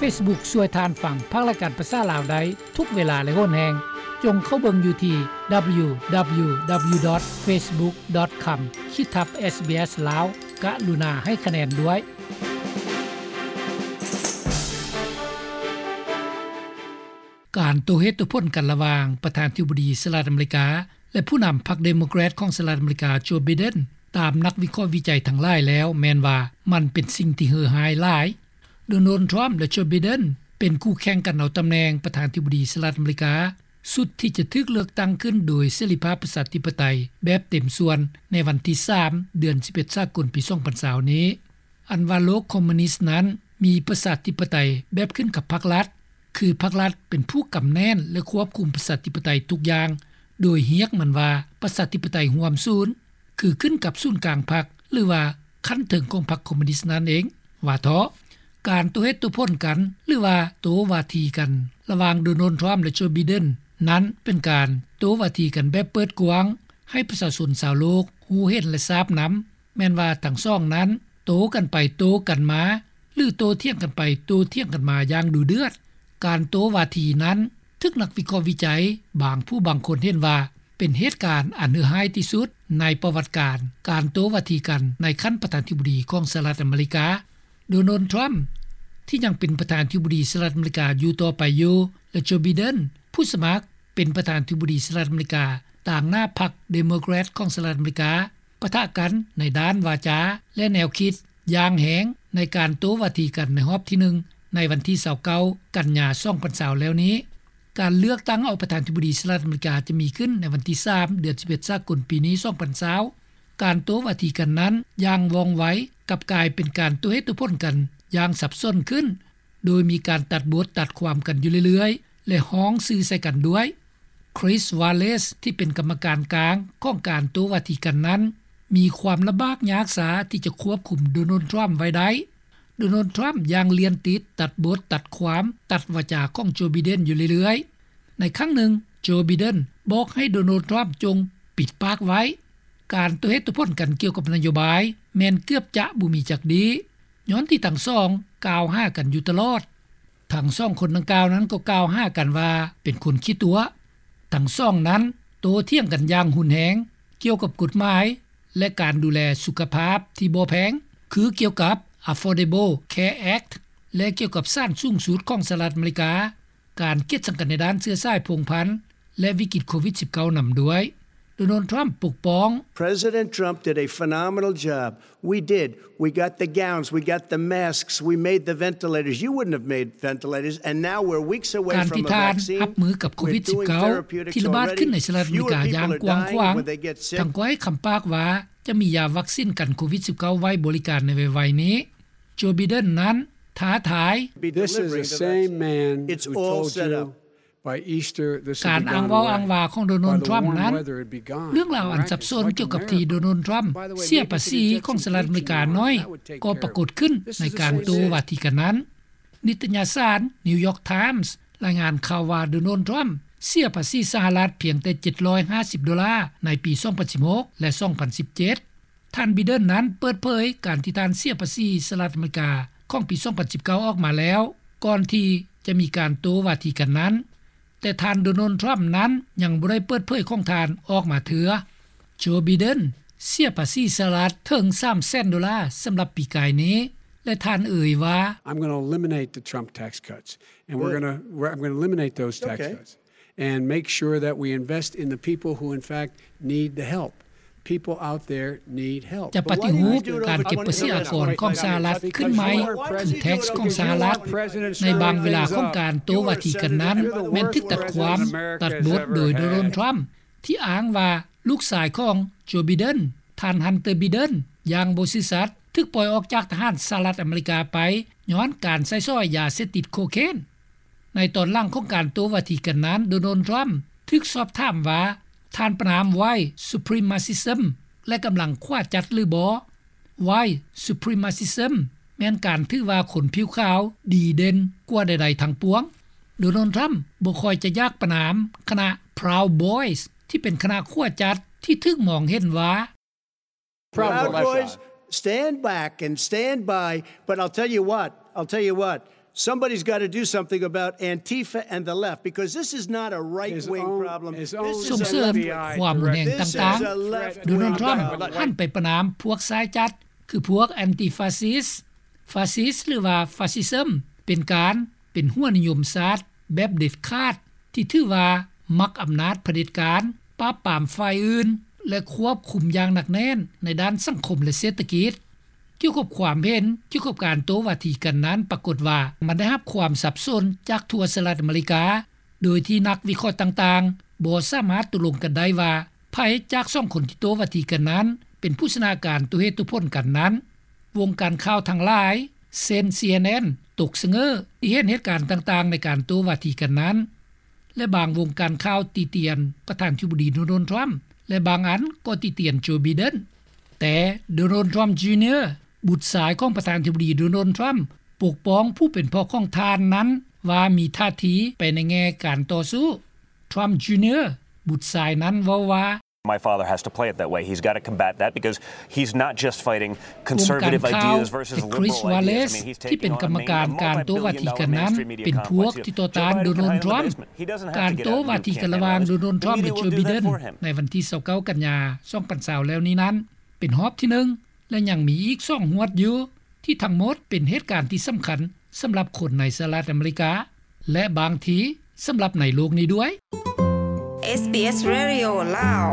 ເຟສບຸກຊ່ວຍທ່ານຟັງພັກລາຍການພາສາລາວໄດ້ທຸກເວລາ ແລະ ໂຫນແຮງ. ຈົ່ງເຂົ້າເບິ່ງຢູ່ທີ່ ດັບເບິນຢູ ດັບເບິນຢູ ດັບເບິນຢູ ດອດ ເຟສບຸກ ດອດ ຄອມ ຂີດທັບ ເອສບີເອສ ລາວ. ກະລຸນາໃຫ້ຄະແນນດ້ວຍ. ການໂຕ້ເຫດໂຕ້ຜົນກັນລະຫວ່າງປະທານທິບໍດີສະຫະລັດອາເມລິກາ ແລະ ຜູ້ນຳພັກເດໂມແຄຣດຂອງສະຫະລັດອາເມລິກາ ໂຈ ໄບເດັນ ຕາມນັກວິເຄາະວິໄຈທັງຫຼາຍແລ້ວ ແມ່ນວ່າມັນເປັນສິ່ງທີ່ເຫື່ອຮ້າຍຫຼາຍ. ໂດນັລ ທຣຳ ແລະ ໂຈ ໄບເດັນ ເປັນຄູ່ແຂ່ງກັນເອົາຕຳແໜ່ງປະທານທິບໍດີສະຫະລັດອາເມລິກາ ຊຸດທີ່ຈະຖືກເລືອກຕັ້ງຂຶ້ນໂດຍເສລີພາບປະຊາທິປະໄຕແບບເຕັມສ່ວນໃນວັນທີສາມ ເດືອນສິບເອັດ ສາກົນ ປີສອງພັນຊາວນີ້. ອັນວ່າໂລກຄອມມູນິດນັ້ນມີປະຊາທິປະໄຕແບບຂຶ້ນກັບພັກລັດ, ຄືພັກລັດເປັນຜູ້ກຳແໜ້ນ ແລະ ຄວບຄຸມປະຊາທິປະໄຕທຸກຢ່າງ, ໂດຍຮຽກມັນວ່າປະຊາທິປະໄຕຮ່ວມສູນ, ຄືຂຶ້ນກັບສູນກາງພັກ ຫຼືວ່າຂັ້ນເທິງຂອງພັກຄອມມູນິດນັ້ນເອງ. ວ່າເທາະ, ການໂຕ້ເຫດໂຕ້ຜົນກັນ ຫຼືວ່າໂຕ້ວາທີກັນລະຫວ່າງໂດນັລ ທຣຳ ແລະ ໂຈ ໄບເດັນ ນັ້ນເປັນການໂຕ້ວາທີກັນແບບເປີດກວ້າງ ໃຫ້ປະຊາຊົນຊາວໂລກຮູ້ເຫັນ ແລະ ຊາບນຳ ແມ່ນວ່າທັງສອງນັ້ນໂຕ້ກັນໄປໂຕ້ກັນມາ ຫຼື ໂຕ້ຖຽງກັນໄປໂຕ້ຖຽງກັນມາຢ່າງດຸເດືອດ. ການໂຕ້ວາທີນັ້ນຖືກນັກວິເຄາະວິໄຈບາງຜູ້ບາງຄົນເຫັນວ່າ ເປັນເຫດການອັນເຫື່ອຮ້າຍທີ່ສຸດໃນປະຫວັດການການໂຕ້ວາທີກັນໃນຂັ້ນປະທານທິບໍດີຂອງສະຫະລັດອາເມລິກາ. ໂດນັລ ທຣຳ ທີ່ຍັງເປັນປະທານທິບໍດີສະຫະລັດອາເມລິກາຢູ່ຕໍ່ໄປຢູ່ ແລະ ໂຈ ໄບເດັນ ຜູ້ສະໝັກເປັນປະທານທິບໍດີສະຫະລັດອາເມລິກາຕາງໜ້າພັກເດໂມແຄຣດຂອງສະຫະລັດອາເມລິກາ ປະທະກັນໃນດ້ານວາຈາ ແລະ ແນວຄິດຢ່າງແຮງໃນການໂຕ້ວາທີກັນໃນຮອບທີໜຶ່ງ ໃນວັນທີຊາວເກົ້າ ກັນຍາ ສອງພັນຊາວແລ້ວນີ້. ການເລືອກຕັ້ງເອົາປະທານທິບໍດີສະຫະລັດອາເມລິກາຈະມີຂຶ້ນໃນວັນທີສາມ ເດືອນສິບເອັດ ສາກົນ ປີນີ້ ສອງພັນຊາວ. ການໂຕ້ວາທີກັນນັ້ນຢ່າງວ່ອງໄວ ກັບກາຍເປັນການໂຕ້ເຫດໂຕ້ຜົນກັນຢ່າງສັບສົນຂຶ້ນ ໂດຍມີການຕັດບົດຕັດຄວາມກັນຢູ່ເລື້ອຍໆ ແລະ ຮ້ອງຊື່ໃສ່ກັນດ້ວຍ. ຄຣິສ ວາເລສ ທີ່ເປັນກຳມະການກາງຂອງການໂຕ້ວາທີກັນນັ້ນ ມີຄວາມລຳບາກຍາກຊາທີ່ຈະຄວບຄຸມໂດນັລ ທຣຳ ໄວ້ໄດ້. ໂດນັລ ທຣຳ ຢ່າງລຽນຕິດຕັດບົດຕັດຄວາມ ຕັດວາຈາຂອງໂຈ ໄບເດັນ ຢູ່ເລື້ອຍໆ. ໃນຄັ້ງໜຶ່ງ ໂຈ ໄບເດັນ ບອກໃຫ້ໂດນັລ ທຣຳ ຈົ່ງປິດປາກໄວ້. ການໂຕ້ເຫດໂຕ້ຜົນກັນກ່ຽວກັບນະໂຍບາຍແມ່ນເກືອບຈະບໍ່ມີຈັກດີ້ ຍ້ອນທີ່ທັງສອງກ່າວຫາກັນຢູ່ຕະຫຼອດ. ທັງສອງຄົນດັ່ງກ່າວນັ້ນກໍກ່າວຫາກັນວ່າເປັນຄົນຂີ້ຕົວະ. ທັງສອງນັ້ນໂຕ້ຖຽງກັນຢ່າງຮຸນແຮງກ່ຽວກັບກົດໝາຍ ແລະ ການດູແລສຸຂະພາບທີ່ບໍ່ແພງ ຄືກ່ຽວກັບ Affordable Care Act ແລະ ກ່ຽວກັບສານສູງສຸດຂອງສະຫະລັດອາເມລິກາ, ການກຽດຊັງກັນໃນດ້ານເຊື້ອສາຍພົງພັນ ແລະ ວິກິດໂຄວິດສິບເກົ້າ ນຳດ້ວຍ. ໂດນັລ ທຣຳ ປົກປ້ອງ. President Trump did a phenomenal job. We did. We got the gowns. We got the masks. We made the ventilators. You wouldn't have made ventilators. And now we're weeks away from a vaccine. ການທີ່ທ່ານຮັບມືກັບໂຄວິດສິບເກົ້າ ທີ່ລະບາດຂຶ້ນໃນສະຫະລັດອາເມລິກາຢ່າງກວ້າງຂວາງ, ທ່ານກໍໃຫ້ຄຳປາກວ່າຈະມີຢາວັກຊິນກັນໂຄວິດສິບເກົ້າ ໄວ້ບໍລິການໃນໄວໆນີ້. ໂຈ ໄບເດັນ ນັ້ນທ້າທາຍ. This is the same man who told you ການອ້າງເວົ້າອ້າງວ່າຂອງໂດນັລ ທຣຳ ນັ້ນ, ເລື່ອງລາວອັນສັບສົນກ່ຽວກັບທີ່ໂດນັລ ທຣຳ ເສຍພາສີຂອງສະຫະລັດອາເມລິກາໜ້ອຍ ກໍປາກົດຂຶ້ນໃນການໂຕ້ວາທີກັນນັ້ນ. ນິດຕະຍະສານ New York Times ລາຍງານຂ່າວວ່າ ໂດນັລ ທຣຳ ເສຍພາສີສະຫະລັດພຽງແຕ່ເຈັດຮ້ອຍຫ້າສິບໂດລາໃນປີສອງພັນສິບຫົກ ແລະ ສອງພັນສິບເຈັດ. ທ່ານ ໄບເດັນ ນັ້ນເປີດເຜີຍການທີ່ທ່ານເສຍພາສີສະຫະລັດອາເມລິກາຂອງປີສອງພັນສິບເກົ້າອອກມາແລ້ວ ກ່ອນທີ່ຈະມີການໂຕ້ວາທີກັນນັ້ນ, ແຕ່ທ່ານ ໂດນັລ ທຣຳ ນັ້ນຍັງບໍ່ໄດ້ເປີດເຜີຍຂອງທ່ານອອກມາເທື່ອ. ໂຈ ໄບເດັນ ເສຍພາສີສະຫະລັດເຖິງສາມແສນໂດລາສຳລັບປີກາຍນີ້ ແລະ ທ່ານເອີ່ຍວ່າ. I'm gonna eliminate the Trump tax cuts. And we're gonna, we're, I'm gonna eliminate those tax cuts. And make sure that we invest in the people who, in fact, need the help. People out there need help. ຈະປະຕິຮູບການເກັບພາສີອາກອນຂອງສະຫະລັດຂຶ້ນໃໝ່ ຄື tax ຂອງສະຫະລັດ. ໃນບາງເວລາຂອງການໂຕ້ວາທີກັນນັ້ນ ແມ່ນຖືກຕັດຄວາມ, ຕັດບົດໂດຍໂດນັລ ທຣຳ ທີ່ອ້າງວ່າລູກຊາຍຂອງໂຈ ໄບເດັນ, ທ່ານ ຮັນເຕີ ໄບເດັນ ຢ່າງບໍ່ຊື່ສັດ ຖືກປ່ອຍອອກຈາກທະຫານສະຫະລັດອາເມລິກາໄປ ຍ້ອນການໃຊ້ສອຍຢາເສບຕິດໂຄເຄນ. ໃນຕອນຫຼັງຂອງການໂຕ້ວາທີກັນນັ້ນ ໂດນັລ ທຣຳ ຖືກສອບຖາມວ່າ ທ່ານປະນາມ White Supremacism ແລະ ກຳລັງຂວາຈັດຫຼືບໍ່? White Supremacism ແມ່ນການຖືວ່າຄົນຜິວຂາວດີເດັ່ນກວ່າໃດໆທັງປວງ. ໂດນັລ ທຣຳ ບໍ່ຄ່ອຍຈະຢາກປະນາມຄະນະ Proud Boys ທີ່ເປັນຄະນະຂວາຈັດທີ່ຖືກມອງເຫັນວ່າ Proud Boys, stand back and stand by. But I'll tell you what, I'll tell you what, Somebody's got to do something about Antifa and the left, because this is not a right wing problem. This is a left wing. ສົ່ງເສີມຄວາມຮຸນແຮງຕ່າງໆ. ໂດນັລ ທຣຳ ຫັນໄປປະນາມພວກຊ້າຍຈັດ ຄືພວກແອນຕິຟາຊິສ, ຟາຊິສ ຫຼືວ່າຟາຊິຊຶມ ເປັນການ ເປັນຫົວນິຍົມຊາດແບບເດັດຂາດ ທີ່ຖືວ່າມັກອຳນາດຜະເດັດການ, ປາບປາມຝ່າຍອື່ນ ແລະ ຄວບຄຸມຢ່າງໜັກແໜ້ນໃນດ້ານສັງຄົມ ແລະ ເສດຖະກິດ. ກ່ຽວກັບຄວາມເຫັນກ່ຽວກັບການໂຕ້ວາທີກັນນັ້ນ ປາກົດວ່າມັນໄດ້ຮັບຄວາມສັບສົນຈາກທົ່ວສະຫະລັດອາເມລິກາ, ໂດຍທີ່ນັກວິເຄາະຕ່າງໆບໍ່ສາມາດຕົກລົງກັນໄດ້ວ່າ ໃຜຈາກສອງຄົນທີ່ໂຕ້ວາທີກັນນັ້ນເປັນຜູ້ຊະນະການໂຕ້ເຫດໂຕ້ຜົນກັນນັ້ນ. ວົງການຂ່າວທັງຫຼາຍ ເຊັ່ນ ຊີເອັນເອັນ ຕົກສະເຫງີທີ່ເຫັນເຫດການຕ່າງໆໃນການໂຕ້ວາທີກັນນັ້ນ ແລະ ບາງວົງການຂ່າວຕິຕຽນປະທານທິບໍດີ ໂດນັລ ທຣຳ ແລະ ບາງອັນກໍຕິຕຽນ ໂຈ ໄບເດັນ. ແຕ່ ໂດນັລ ທຣຳ ຈູເນຍ ບຸດຊາຍຂອງປະທານທິບໍດີ ໂດນັລ ທຣຳ ປົກປ້ອງຜູ້ເປັນພໍ່ຂອງທ່ານນັ້ນວ່າມີທ່າທີໄປໃນແງ່ການຕໍ່ສູ້. ທຣຳ ຈູເນຍ ບຸດຊາຍນັ້ນເວົ້າວ່າ My father has to play it that way. He's got to combat that because he's not just fighting conservative ideas versus liberal ideas. I mean, he's taking on a main, a multi-billion dollar mainstream media complex. Joe Biden can have it in his basement. He doesn't have to get out and do campaign rallies. ການໂຕ້ວາທີກັນລະຫວ່າງ ໂດນັລ ທຣຳ ແລະ ໂຈ ໄບເດັນ ໃນວັນທີຊາວເກົ້າ ກັນຍາ ສອງພັນຊາວ ແລ້ວນີ້ນັ້ນ ເປັນຮອບທີໜຶ່ງ ແລະ ຍັງມີອີກສອງຫວດຢູ່ ທີ່ທັງໝົດເປັນເຫດການທີ່ສຳຄັນສຳລັບຄົນໃນສະຫະລັດອາເມລິກາ ແລະ ບາງທີສຳລັບໃນໂລກນີ້ດ້ວຍ. ເອສບີເອສ ເຣດິໂອ ລາວ.